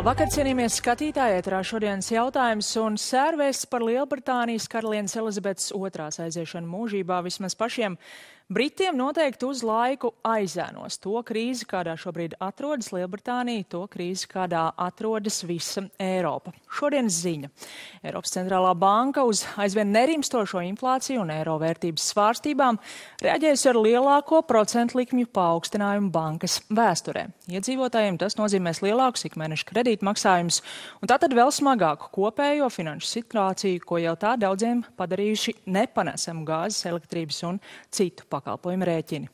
Labvakar, cienījamies skatītāji, ēterā šodienas jautājums un sērvēsts par Lielbritānijas karalienes Elizabetes II aiziešanu mūžībā vismaz pašiem Britiem noteikti uz laiku aizēnos to krīzi, kādā šobrīd atrodas Lielbritānija, to krīzi, kādā atrodas visa Eiropa. Šodienas ziņa. Eiropas centrālā banka uz aizvien nerimstošo inflāciju un eiro vērtības svārstībām reaģējusi ar lielāko procentu likmju paaugstinājumu bankas vēsturē. Iedzīvotājiem tas nozīmēs lielākus ikmēneša kredītmaksājumus un tātad vēl smagāku kopējo finanšu situāciju, ko jau tā daudziem padarījuši nepanesamu gāzes, elektrības un citu pakalpojumu rēķini.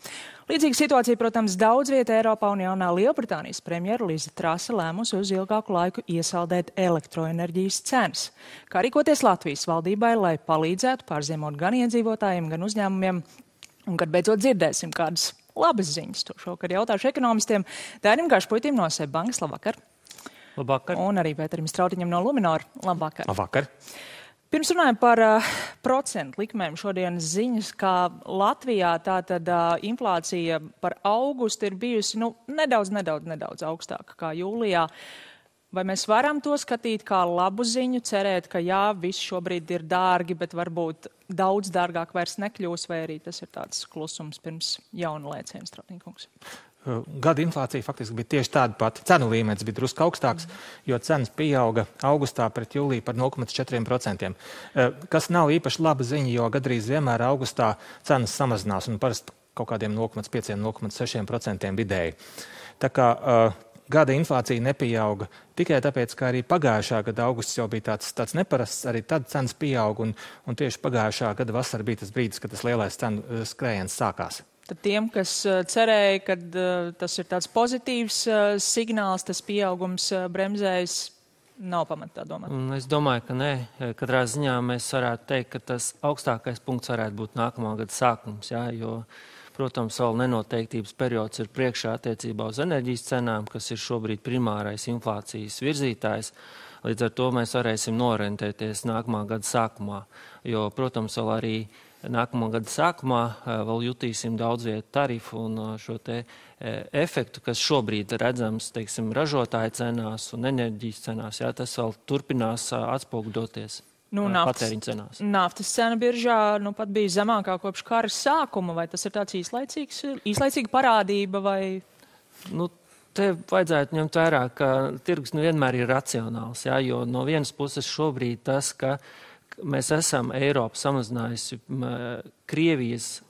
Līdzīga situācija, protams, daudz vieta Eiropā un jaunā Lielbritānijas premjera Liza Trase lēmusi uz ilgāku laiku iesaldēt elektroenerģijas cenas. Kā rīkoties Latvijas valdībai, lai palīdzētu pārziemot gan iedzīvotājiem, gan uzņēmumiem, un kad beidzot dzirdēsim kādas labas ziņas, to šokar jautāšu ekonomistiem. Dairim Gašpuitim no SEB bankas, labvakar. Labvakar. Un arī Pēterim Strautiņam no Luminor, labvakar. Labvakar. Pirms runājam par procentu likmēm šodienas ziņas, kā Latvijā tātad inflācija par augustu ir bijusi nedaudz augstāka kā jūlijā. Vai mēs varam to skatīt kā labu ziņu, cerēt, ka jā, viss šobrīd ir dārgi, bet varbūt daudz dārgāk vairs nekļūs, vai arī tas ir tāds klusums pirms jauna lēciena, Strautiņkungs? Gada inflācija faktiski bija tieši tāda pati. Cenu līmenis bija drusku augstāks, jo cenas pieauga augustā pret jūliju par 0,4%. Kas nav īpaši laba ziņa, jo gadrīz vienmēr augustā cenas samazinās un parasti kaut kādiem 0,5–0,6% vidēji. Tā kā gada inflācija nepieauga tikai tāpēc, ka arī pagājušā gada augusts jau bija tāds neparasts, arī tad cenas pieauga un tieši pagājušā gada vasara bija tas brīdis, kad tas lielais cenu skrējiens sākās. Tad tiem, kas cerēja, ka tas ir tāds pozitīvs signāls, tas pieaugums bremzējas, nav pamata tā domāt? Es domāju, ka nē. Katrā ziņā mēs varētu teikt, ka tas augstākais punkts varētu būt nākamā gada sākums, jā, jo, protams, vēl nenoteiktības periods ir priekšā attiecībā uz enerģijas cenām, kas ir šobrīd primārais inflācijas virzītājs. Līdz ar to mēs varēsim norentēties nākamā gada sākumā, jo, protams, vēl arī nākamā gada sākumā vēl jutīsim daudz vietu tarifu un šo te efektu, kas šobrīd redzams, teiksim, ražotāju cenās un enerģijas cenās. Jā, tas vēl turpinās atspoguļoties patēriņa cenās. Naftas cena biržā pat bija zemākā kopš kara sākuma, vai tas ir tāds īslaicīga parādība vai? Te vajadzētu ņemt vērā, ka tirgus vienmēr ir racionāls, jā, jo no vienas puses šobrīd tas, ka mēs esam Eiropu samazinājusi Krievijas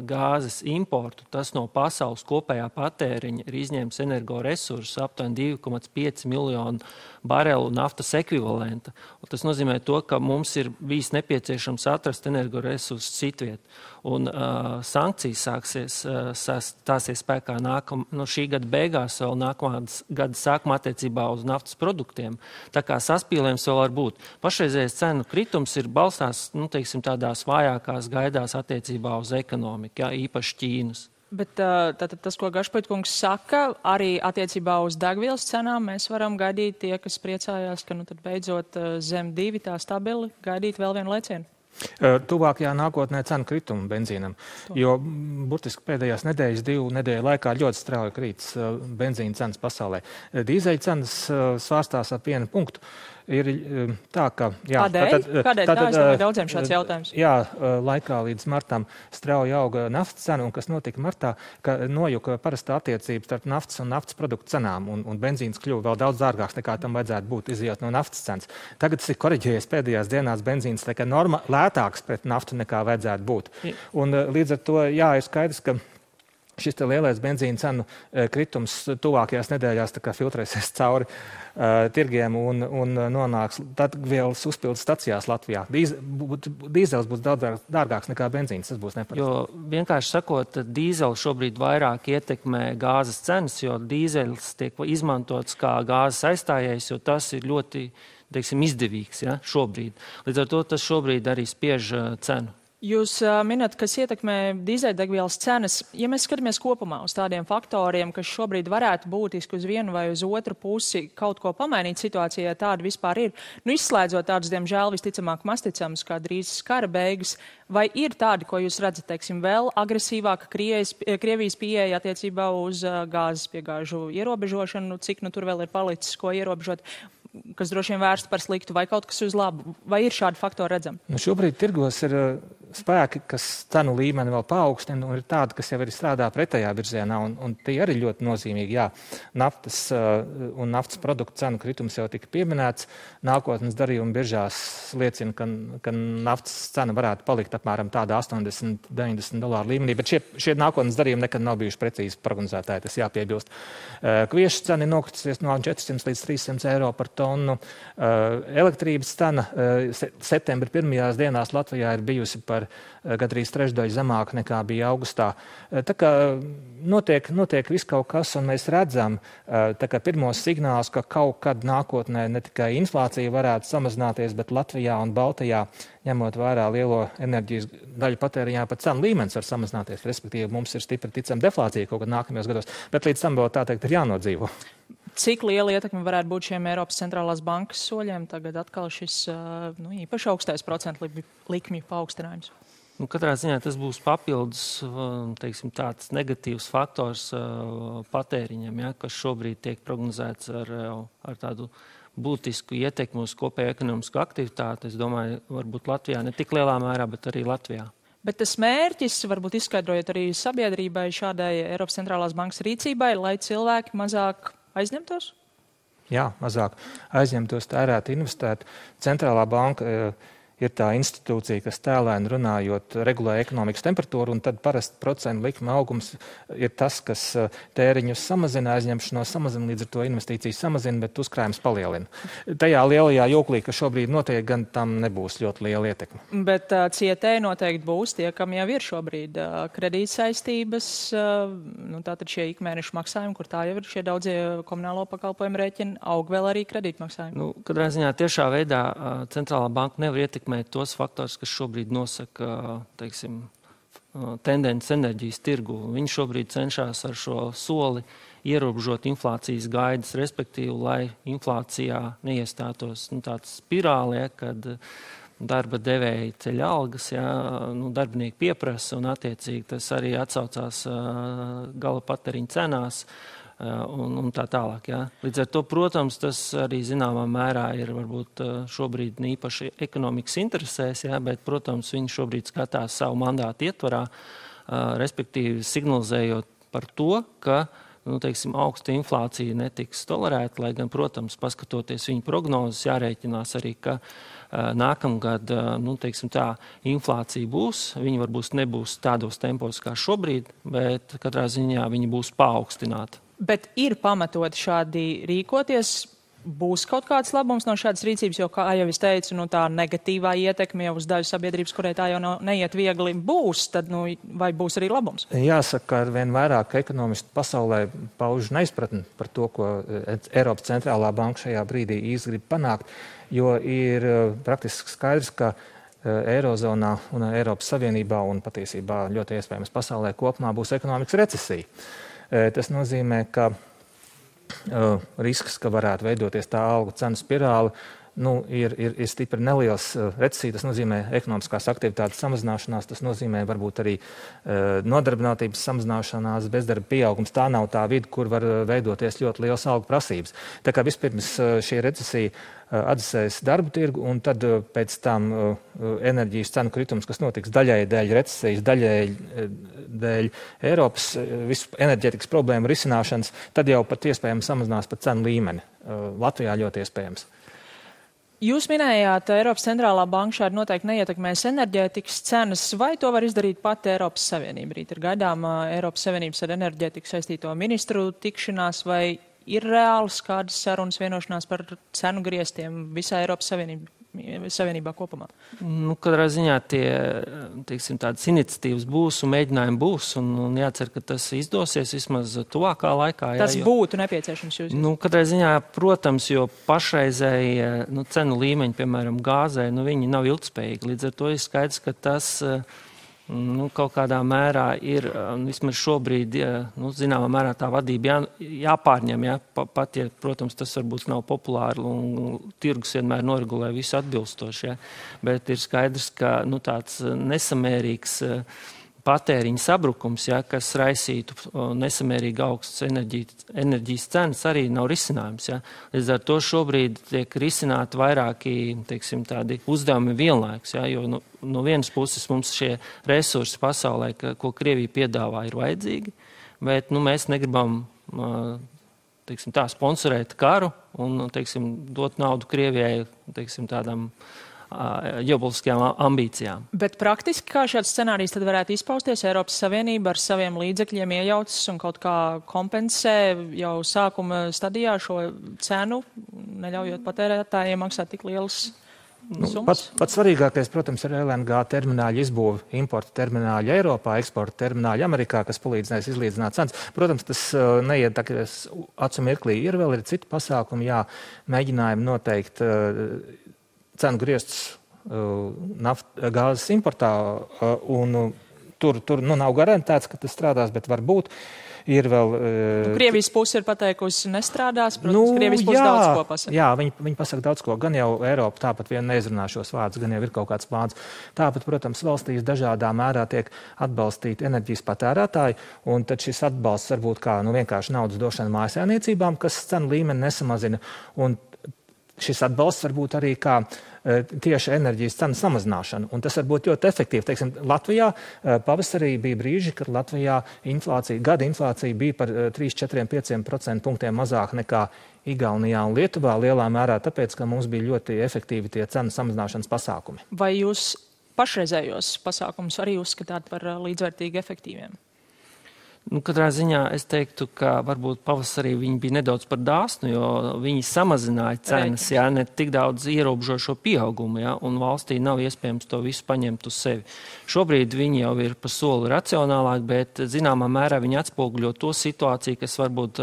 gāzes importu, tas no pasaules kopējā patēriņa ir izņēmis energoresursus aptuveni 2,5 miljonu barelu naftas ekvivalenta. Un tas nozīmē to, ka mums ir bijis nepieciešams atrast energoresursus citviet. Un sankcijas stāsies spēkā šī gada beigās, vēl nākamā gada sākumā attiecībā uz naftas produktiem. Tā kā saspīlējums vēl var būt. Pašreizējais cenu kritums ir balstās, tādās vājākās gaidās attiecībā uz ekonomiku, jā, īpaši Ķīnas. Bet tātad tas, ko Gašpuitkungs saka, arī attiecībā uz degvielas cenām mēs varam gaidīt tie, kas priecājās, ka tad beidzot zem 2 tā stabili gaidīt vēl vienu lēcienu. Tuvākajā nākotnē cenu kritumu benzīnam, jo burtiski pēdējās nedēļas, 2 nedēļu laikā ļoti strauji krītas benzīna cenas pasaulē. Dīzeļa cenas svārstās ap 1 punktu. Ir tā, ka... Jā, Kādēļ? Tā es domāju daudziem šāds jautājums. Jā, laikā līdz martam strauji auga naftas cena, un kas notika martā, ka nojuka parastā attiecības starp naftas un naftas produktu cenām, un benzīns kļuva vēl daudz dārgāks nekā tam vajadzētu būt, izejot no naftas cenas. Tagad tas ir koriģējies pēdējās dienās benzīns, tā kā lētāks pret naftu nekā vajadzētu būt. Un līdz ar to, jā, ir skaidrs, ka šis te lielais benzīna cenu kritums tuvākajās nedēļās tā kā filtrēsies cauri tirgiem un nonāks degvielas uzpildes stacijās Latvijā. Dīzels būs daudz dārgāks nekā benzīns, tas būs neparasti. Jo vienkārši sakot, dīzels šobrīd vairāk ietekmē gāzes cenas, jo dīzels tiek izmantots kā gāzes aizstājējs, jo tas ir ļoti, izdevīgs, ja, šobrīd. Līdz ar to tas šobrīd arī spiež cenu. Jūs minat, kas ietekmē dīzeļdegvielas cenas. Ja mēs skatāmies kopumā uz tādiem faktoriem, kas šobrīd varētu būtiski uz vienu vai uz otru pusi kaut ko pamainīt situācijā, tāda vispār ir, izslēdzot tādus, diemžēl, visticamāk masticams, kā drīz kara beigas, vai ir tādi, ko jūs redzat, teiksim, vēl agresīvāka Krievijas pieeja attiecībā uz gāzes piegāžu ierobežošanu, cik tur vēl ir palicis, ko ierobežot, kas droši vien vērsta par sliktu, vai kaut kas uz labu? Vai ir šādi faktori redzami? Šobrīd tirgos ir spēki, kas cenu līmeni vēl paaugstina, un ir tādi, kas jau arī strādā pretējā virzienā, un tie arī ļoti nozīmīgi. Jā, naftas un naftas produktu cenu kritums jau tika pieminēts. Nākotnes darījuma biržās liecina, ka naftas cena varētu palikt apmēram tādā $80–90 līmenī, bet šie nākotnes darījumi nekad nav bijuši precīzi prognozētāji, tas jāpiebilst. Kviešu cena ir nokritusies no 400 līdz 300 eiro par tonu. Elektrības cena septembra pirmajās dienās Latvijā ir bijusi par gandrīz trešdaļu zemāk nekā bija augustā. Tā kā notiek viss kaut kas, un mēs redzam pirmos signālus, ka kaut kad nākotnē ne tikai inflācija varētu samazināties, bet Latvijā un Baltijā, ņemot vērā lielo enerģijas daļu patēriņā, pat cenu līmenis var samazināties. Respektīvi, mums ir stipri ticama deflācija kaut kad nākamajos gados, bet līdz tam vēl tā teikt ir jānodzīvo. Cik liela ietekme varētu būt šiem Eiropas centrālās bankas soļiem? Tagad atkal šis īpaši augstais procentu likmju paaugstinājums. Katrā ziņā tas būs papildus, teiksim, tāds negatīvs faktors patēriņam, ja, kas šobrīd tiek prognozēts ar tādu būtisku ietekmi uz kopēju ekonomisku aktivitāti. Es domāju, varbūt Latvijā ne tik lielā mērā, bet arī Latvijā. Bet tas mērķis, varbūt izskaidrojot arī sabiedrībai šādai Eiropas centrālās bankas rīcībai, lai cilvēki mazāk aizņemtos? Jā, mazāk aizņemtos, tērēt, investēt. Centrālā banka ir tā institūcija, kas tēlēni runājot regulē ekonomikas temperatūru, un tad parasti procentu likuma augums ir tas, kas tēriņus samazina, aizņemšanos samazina, līdz ar to investīcijas samazina, bet uzkrājums palielina. Tajā lielajā joklī, kas šobrīd notiek, gan tam nebūs ļoti liela ietekme. Bet cietēji noteikti būs tie, kam jau ir šobrīd kredītsaistības, tātad šie ikmēnešu maksājumi, kur tā jau ir šie daudzie komunālo pakalpojumu rēķini, aug vēl arī kredītmaksājumi. Katrā ziņā tiešā veidā centrālā banka nevar ietekmēt tos faktors, kas šobrīd nosaka, teiksim, tendences enerģijas tirgu. Viņi šobrīd cenšas ar šo soli ierobežot inflācijas gaidas, respektīvi, lai inflācijā neiestātos tāds spirāli, kad darba devēji ceļ algas, darbinieki pieprasa, un attiecīgi tas arī atsaucās gala patēriņa cenās. Un tā tālāk. Jā. Līdz ar to, protams, tas arī zināmā mērā ir varbūt šobrīd īpaši ekonomikas interesēs, jā, bet, protams, viņi šobrīd skatās savu mandātu ietvarā, respektīvi signalizējot par to, ka teiksim, augsta inflācija netiks tolerēta, lai gan, protams, paskatoties viņu prognozes, jārēķinās arī, ka nākamgad, teiksim tā, inflācija būs, viņi varbūt nebūs tādos tempos kā šobrīd, bet katrā ziņā viņi būs paaugstināti. Bet ir pamatot šādi rīkoties, būs kaut kāds labums no šādas rīcības, jo, kā jau es teicu, tā negatīvā ietekme jau uz daļu sabiedrības, kurai tā jau neiet viegli, būs, tad vai būs arī labums? Jāsaka, ka arvien vairāk ekonomisti pasaulē pauž neizpratni par to, ko Eiropas centrālā banka šajā brīdī īsti grib panākt, jo ir praktiski skaidrs, ka Eirozonā un Eiropas Savienībā un patiesībā ļoti iespējams pasaulē kopumā būs ekonomikas recesija. Tas nozīmē, ka risks, ka varētu veidoties tā algu cenu spirāli, ir stipri neliels. Recesija, tas nozīmē ekonomiskās aktivitātes samazināšanās, tas nozīmē varbūt arī nodarbinātības samazināšanās, bezdarba pieaugums. Tā nav tā vide, kur var veidoties ļoti liels algu prasības. Tā kā vispirms šī recesija atdzesēs darba tirgu, un tad pēc tam enerģijas cenu kritums, kas notiks daļai dēļ recesijas, daļai dēļ Eiropas visu enerģētikas problēmu risināšanas, tad jau pat iespējams samazinās pat cenu līmeni. Latvijā ļoti iespējams. Jūs minējāt, Eiropas centrālā banka šādi noteikti neietekmēs enerģētikas cenas, vai to var izdarīt pati Eiropas Savienība? Rīt ir gaidāma Eiropas Savienības ar enerģētiku saistīto ministru tikšanās, vai ir reāls kādas sarunas vienošanās par cenu griestiem visā Eiropas Savienībā? Savienībā kopumā? Nu, katrā ziņā teiksim, tādas iniciatīvas būs un mēģinājumi būs, un jācer, ka tas izdosies vismaz tuvākā laikā. Tas būtu nepieciešams jūs? Nu, katrā ziņā, protams, jo pašreizēji cenu līmeņi, piemēram, gāzē, viņi nav ilgspējīgi. Līdz ar to ir skaidrs, ka tas kaut kādā mērā ir, vismaz šobrīd, zināmā mērā tā vadība jāpārņem, pat, ja, protams, tas varbūt nav populāri un tirgus vienmēr noregulē visu atbilstoši, bet ir skaidrs, ka tāds nesamērīgs patēriņa sabrukums, kas raisītu nesamērīgi augstas enerģijas cenas, arī nav risinājums. Līdz ar to šobrīd tiek risināti vairāki, teiksim, tādi uzdevumi vienlaikus, jo no vienas puses mums šie resursi pasaulē, ko Krievija piedāvā, ir vajadzīgi, bet mēs negribam teiksim, sponsorēt karu un teiksim, dot naudu Krievijai teiksim, tādām ģeopolitiskajām ambīcijām. Bet praktiski kā šāds scenārijs tad varētu izpausties? Eiropas Savienība ar saviem līdzekļiem iejaucas un kaut kā kompensē jau sākuma stadijā šo cenu, neļaujot patērētājiem maksāt tik lielas summas? Pats svarīgākais, protams, ir LNG termināļa izbūve, importa termināļa Eiropā, eksporta termināļa Amerikā, kas palīdzinās izlīdzināt cenas. Protams, tas neiet tā, ka acu mirklī ir vēl citi pasākumi, mēģinājumi noteikt cenu griestus gāzes importā, un tur nav garantēts, ka tas strādās, bet varbūt ir vēl... Krievijas puse ir pateikusi nestrādās, protams, Krievijas puse daudz ko pasaka. Jā, viņi pasaka daudz ko. Gan jau Eiropa tāpat vien neizrunā šos vārdus, gan jau ir kaut kāds plāns. Tāpat, protams, valstīs dažādā mērā tiek atbalstīti enerģijas patērētāji, un tad šis atbalsts varbūt kā vienkārši naudas došana mājasēmniecībām, kas cenu līmeni nesamazina, un šis atbalsts varbūt arī kā tieši enerģijas cenu samazināšana. Un tas var būt ļoti efektīvi. Teiksim, Latvijā pavasarī bija brīži, kad Latvijā gada inflācija bija par 3, 4, 5% punktiem mazāk nekā Igaunijā un Lietuvā, lielā mērā tāpēc, ka mums bija ļoti efektīvi tie cenu samazināšanas pasākumi. Vai jūs pašreizējos pasākumus arī uzskatāt par līdzvērtīgi efektīviem? Katrā ziņā es teiktu, ka varbūt pavasarī viņi bija nedaudz par dāsnu, jo viņi samazināja cenas, ne tik daudz ierobežo šo pieaugumu, un valstī nav iespējams to visu paņemt uz sevi. Šobrīd viņi jau ir pa soli racionālāk, bet zināmā mērā viņi atspoguļo to situāciju, kas varbūt,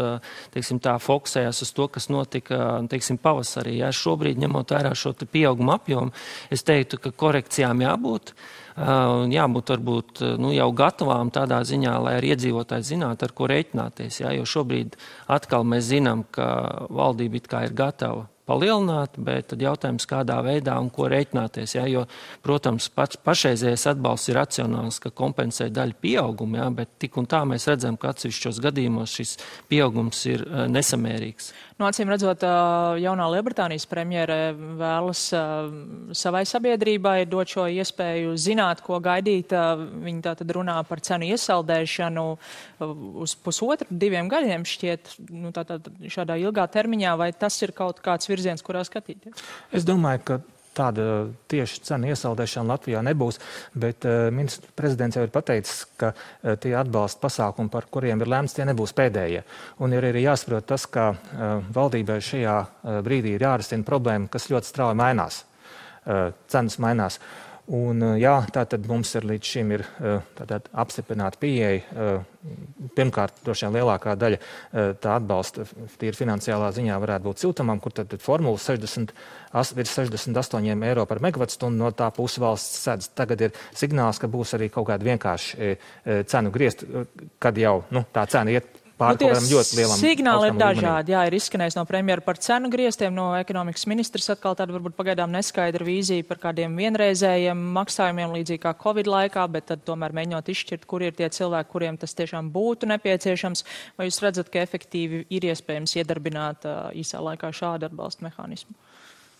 teiksim, tā fokusējās uz to, kas notika, teiksim, pavasarī. Šobrīd, ņemot vērā šo pieaugumu apjomu, es teiktu, ka korekcijām jābūt. Jābūt varbūt jau gatavām tādā ziņā, lai arī iedzīvotāji zinātu, ar ko rēķināties. Jo šobrīd atkal mēs zinām, ka valdība it kā ir gatava palielināt, bet tad jautājums, kādā veidā un ko rēķināties. Jo, protams, pašreizējais atbalsts ir racionāls, ka kompensē daļu pieaugumu, bet tik un tā mēs redzam, ka atsevišķos gadījumos šis pieaugums ir nesamērīgs. Acīm redzot, jaunā Lielbritānijas premjere vēlas savai sabiedrībai dot šo iespēju zināt, ko gaidīt. Viņi tātad runā par cenu iesaldēšanu uz 1,5–2 gadiem šķiet, tātad šādā ilgā termiņā, vai tas ir kaut kāds virziens, kurā skatīties? Es domāju, ka tāda tieši cenu iesaldēšana Latvijā nebūs, bet ministrs prezidents jau ir pateicis, ka tie atbalsta pasākumi, par kuriem ir lēmts, tie nebūs pēdējie. Un ir arī jāsaprot tas, ka valdībai šajā brīdī ir jārisina problēma, kas ļoti strauji mainās. Cenas mainās. Un, tātad mums ir līdz šim ir apstiprināta pieeja. Pirmkārt, droši vien lielākā daļa tā atbalsta tīri finansiālā ziņā varētu būt siltumam, kur tad formula 68 eiro par megavatstundu no tā puses valsts sedz. Tagad ir signāls, ka būs arī kaut kāda vienkārši cenu griezt, kad jau tā cena iet pār kaut kādam ļoti lielam signāli ir dažādi. Ir izskanējis no premjera par cenu griestiem, no ekonomikas ministrs atkal tāda varbūt pagaidām neskaidra vīzija par kādiem vienreizējiem maksājumiem līdzīgi kā Covid laikā, bet tad tomēr mēģinot izšķirt, kur ir tie cilvēki, kuriem tas tiešām būtu nepieciešams. Vai jūs redzat, ka efektīvi ir iespējams iedarbināt īsā laikā šādu atbalstu mehānismu?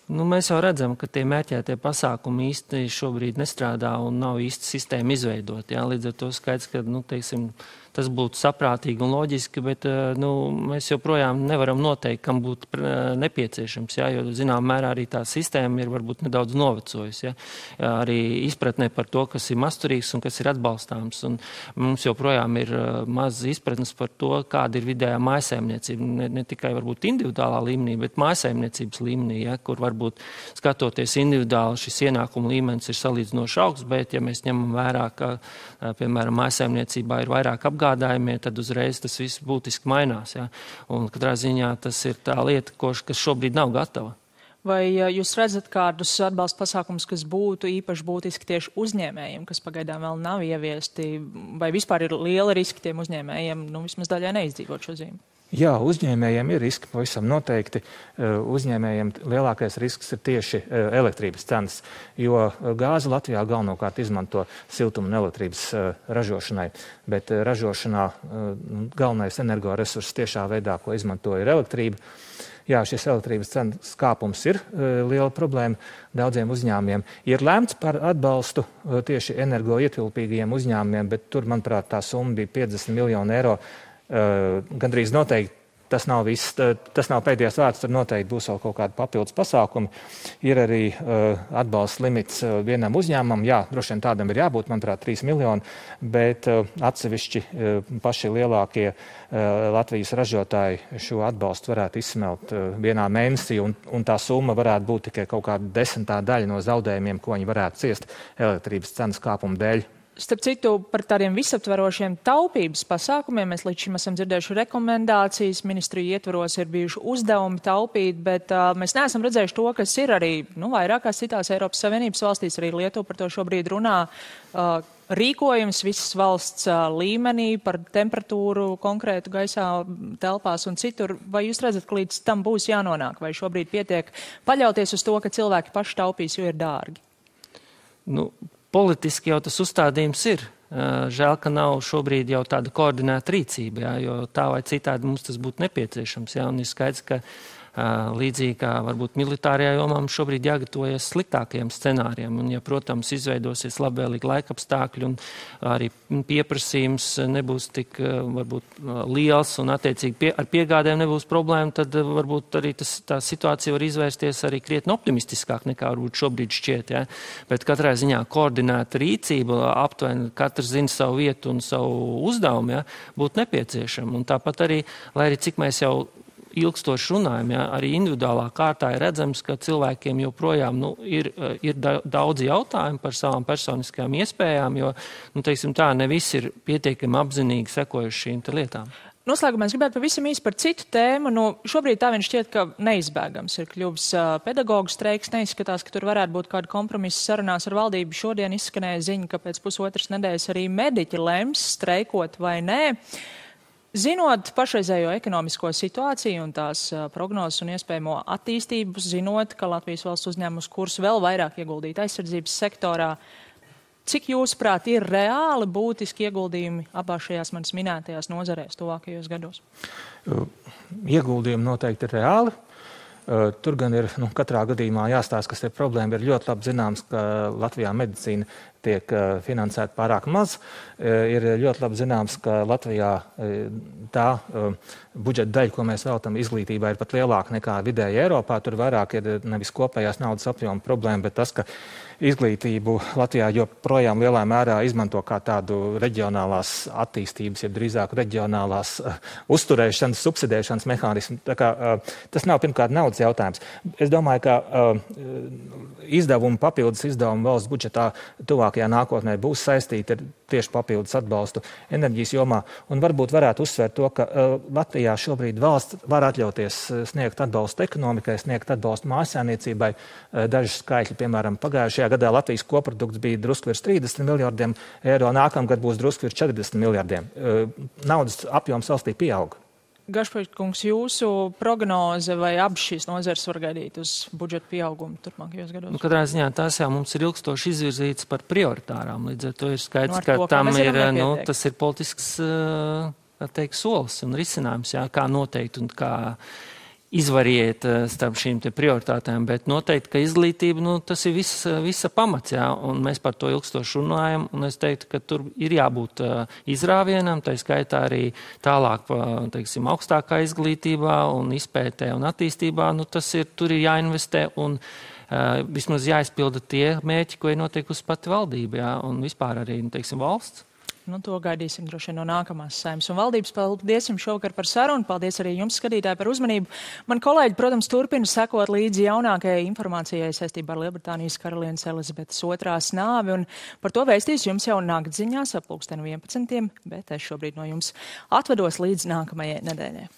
Mēs jau redzam, ka tie mērķētie pasākumi īsti šobrīd nestrādā un nav īsti sistēma izveidot. Līdz ar to skaidrs, ka, teiksim, tas būtu saprātīgi un loģiski, bet mēs joprojām nevaram noteikt, kam būtu nepieciešams, jo, zinām, mērā arī tā sistēma ir varbūt nedaudz novecojusi, arī izpratnē par to, kas ir masturīgs un kas ir atbalstāms. Un mums joprojām ir maz izpratnes par to, kāda ir vidējā mājsaimniecība, ne tikai varbūt individuālā līmenī, bet mājsaimniecības līmenī, kur varbūt skatoties individuāli šis ienākuma līmenis ir salīdzinoši augsts, bet ja mēs ņemam vērā, ka, piemēram, mājsaimniecībā ir vairāk apgādājumie, tad uzreiz tas viss būtiski mainās. Ja? Un katrā ziņā tas ir tā lieta, kas šobrīd nav gatava. Vai jūs redzat kādus atbalsta pasākumus, kas būtu īpaši būtiski tieši uzņēmējiem, kas pagaidām vēl nav ieviesti, vai vispār ir liela riski tiem uzņēmējiem, vismaz daļai neizdzīvot šo zīmi? Jā, uzņēmējiem ir riski pavisam noteikti. Uzņēmējiem lielākais risks ir tieši elektrības cenas, jo gāzi Latvijā galvenokārt izmanto siltuma un elektrības ražošanai, bet ražošanā galvenais energoresurss tiešā veidā, ko izmanto, ir elektrība. Jā, šis elektrības cenas kāpums ir liela problēma daudziem uzņēmumiem. Ir lēmts par atbalstu tieši energoietilpīgajiem uzņēmumiem, bet tur, manuprāt, tā summa bija 50 miljoni eiro. Gandrīz noteikti tas nav viss, tas nav pēdējais vārds, tur noteikti būs vēl kaut kādi papildus pasākumi. Ir arī atbalsts limits vienam uzņēmumam, jā, droši vien tādam ir jābūt, manuprāt, 3 miljoni, bet atsevišķi paši lielākie Latvijas ražotāji šo atbalstu varētu izsmelt vienā mēnesī, un tā summa varētu būt tikai kaut kāda 10. daļa no zaudējumiem, ko viņi varētu ciest elektrības cenas kāpuma dēļ. Starp citu, par tādiem visaptverošiem taupības pasākumiem mēs līdz šim esam dzirdējuši rekomendācijas, ministriju ietvaros ir bijuši uzdevumi taupīt, bet mēs neesam redzējuši to, kas ir arī vairākās citās Eiropas Savienības valstīs, arī Lietuva par to šobrīd runā. Rīkojums visas valsts līmenī par temperatūru konkrētu gaisā, telpās un citur. Vai jūs redzat, ka līdz tam būs jānonāk, vai šobrīd pietiek paļauties uz to, ka cilvēki paši taupīs, jo ir dārgi? Politiski jau tas uzstādījums ir. Žēl, ka nav šobrīd jau tāda koordinēta rīcība, jo tā vai citādi mums tas būtu nepieciešams. Un ir skaidrs, ka līdzīgi kā varbūt militārajā jomā mums šobrīd jāgatavojas sliktākajiem scenārijiem. Un, ja, protams, izveidosies labvēlīgi laikapstākļi un arī pieprasījums nebūs tik varbūt liels un attiecīgi ar piegādēm nebūs problēma, tad varbūt arī tā situācija var izvērsties arī krietni optimistiskāk nekā varbūt šobrīd šķiet. Ja? Bet katrā ziņā koordinēta rīcība, aptuveni katrs zina savu vietu un savu uzdevumu, ja, būtu nepieciešama. Un tāpat arī, lai arī cik mēs jau ilgstoši runājam, ja, arī individuālā kārtā ir redzams, ka cilvēkiem joprojām ir daudz jautājumu par savām personiskajām iespējām, jo, teiksim tā, ne visi ir pietiekami apzinīgi sekojuši šīm lietām. Noslēgumā es gribētu pavisam īsi par citu tēmu. Šobrīd tā vien šķiet, ka neizbēgams ir kļuvis pedagoģu streiks. Neizskatās, ka tur varētu būt kāda kompromisa sarunās ar valdību. Šodien izskanēja ziņa, ka pēc pusotras nedēļas arī mediķi lems streikot vai nē. Zinot pašreizējo ekonomisko situāciju un tās prognozes un iespējamo attīstību, zinot, ka Latvijas valsts uzņēmus kursu vēl vairāk ieguldīt aizsardzības sektorā, cik jūsuprāt ir reāli būtiski ieguldījumi abās šajās manas minētajās nozarēs tuvākajos gados? Ieguldījumi noteikti ir reāli. Tur gan ir katrā gadījumā jāstāsta, kas ir problēma. Ir ļoti labi zināms, ka Latvijā medicīna tiek finansēta pārāk maz. Ir ļoti labi zināms, ka Latvijā tā budžeta daļa, ko mēs veltam izglītībai, ir pat lielāka nekā vidēji Eiropā. Tur vairāk ir nevis kopējās naudas apjoma problēma, bet tas, ka izglītību Latvijā joprojām lielā mērā izmanto kā tādu reģionālās attīstības, ja drīzāk reģionālās uzturēšanas, subsidēšanas mehānismu. Tā kā, tas nav pirmkārt naudas jautājums. Es domāju, ka papildus izdevumi valsts budžetā tuvākajā nākotnē būs saistīti ar tieši papildus atbalstu enerģijas jomā. Un varbūt varētu uzsvērt to, ka Latvijā šobrīd valsts var atļauties sniegt atbalstu ekonomikai, sniegt atbalstu mājsaimniecībai. Daži skaitļi, piemēram, pagājušajā gadā Latvijas koprodukts bija drusku virs 30 miljardiem eiro, nākamgad būs drusku virs 40 miljardiem. Naudas apjoms valstī pieauga. Gašpaļkungs, jūsu prognoze vai abas šīs nozares var gaidīt uz budžeta pieaugumu turpmākajos gados? Katrā ziņā tās jau mums ir ilgstoši izvirzītas par prioritārām. Līdz ar to ir skaidrs, ka tam ir, tas ir politisks, solis un risinājums, jā, kā noteikt un kā izvariet starp šīm te prioritātēm, bet noteikti, ka izglītība, tas ir visa pamats, jā, un mēs par to ilgstoši runājam, un es teiktu, ka tur ir jābūt izrāvienam, tā skaitā arī tālāk, teiksim, augstākā izglītībā un izpētē un attīstībā, tur ir jāinvestē un vismaz jāizpilda tie mērķi, ko ir noteikusi pati valdība, jā, un vispār arī, teiksim, valsts. To gaidīsim droši vien no nākamās Saeimas un valdības. Paldies jums šovakar par sarunu. Paldies arī jums, skatītāji, par uzmanību. Man kolēģi, protams, turpina sekot līdzi jaunākajai informācijai saistībā ar Lielbritānijas karalienes Elizabetes II nāvi. Un par to vēstīs jums jau naktziņās ap 11. bet es šobrīd no jums atvedos līdz nākamajai nedēļai.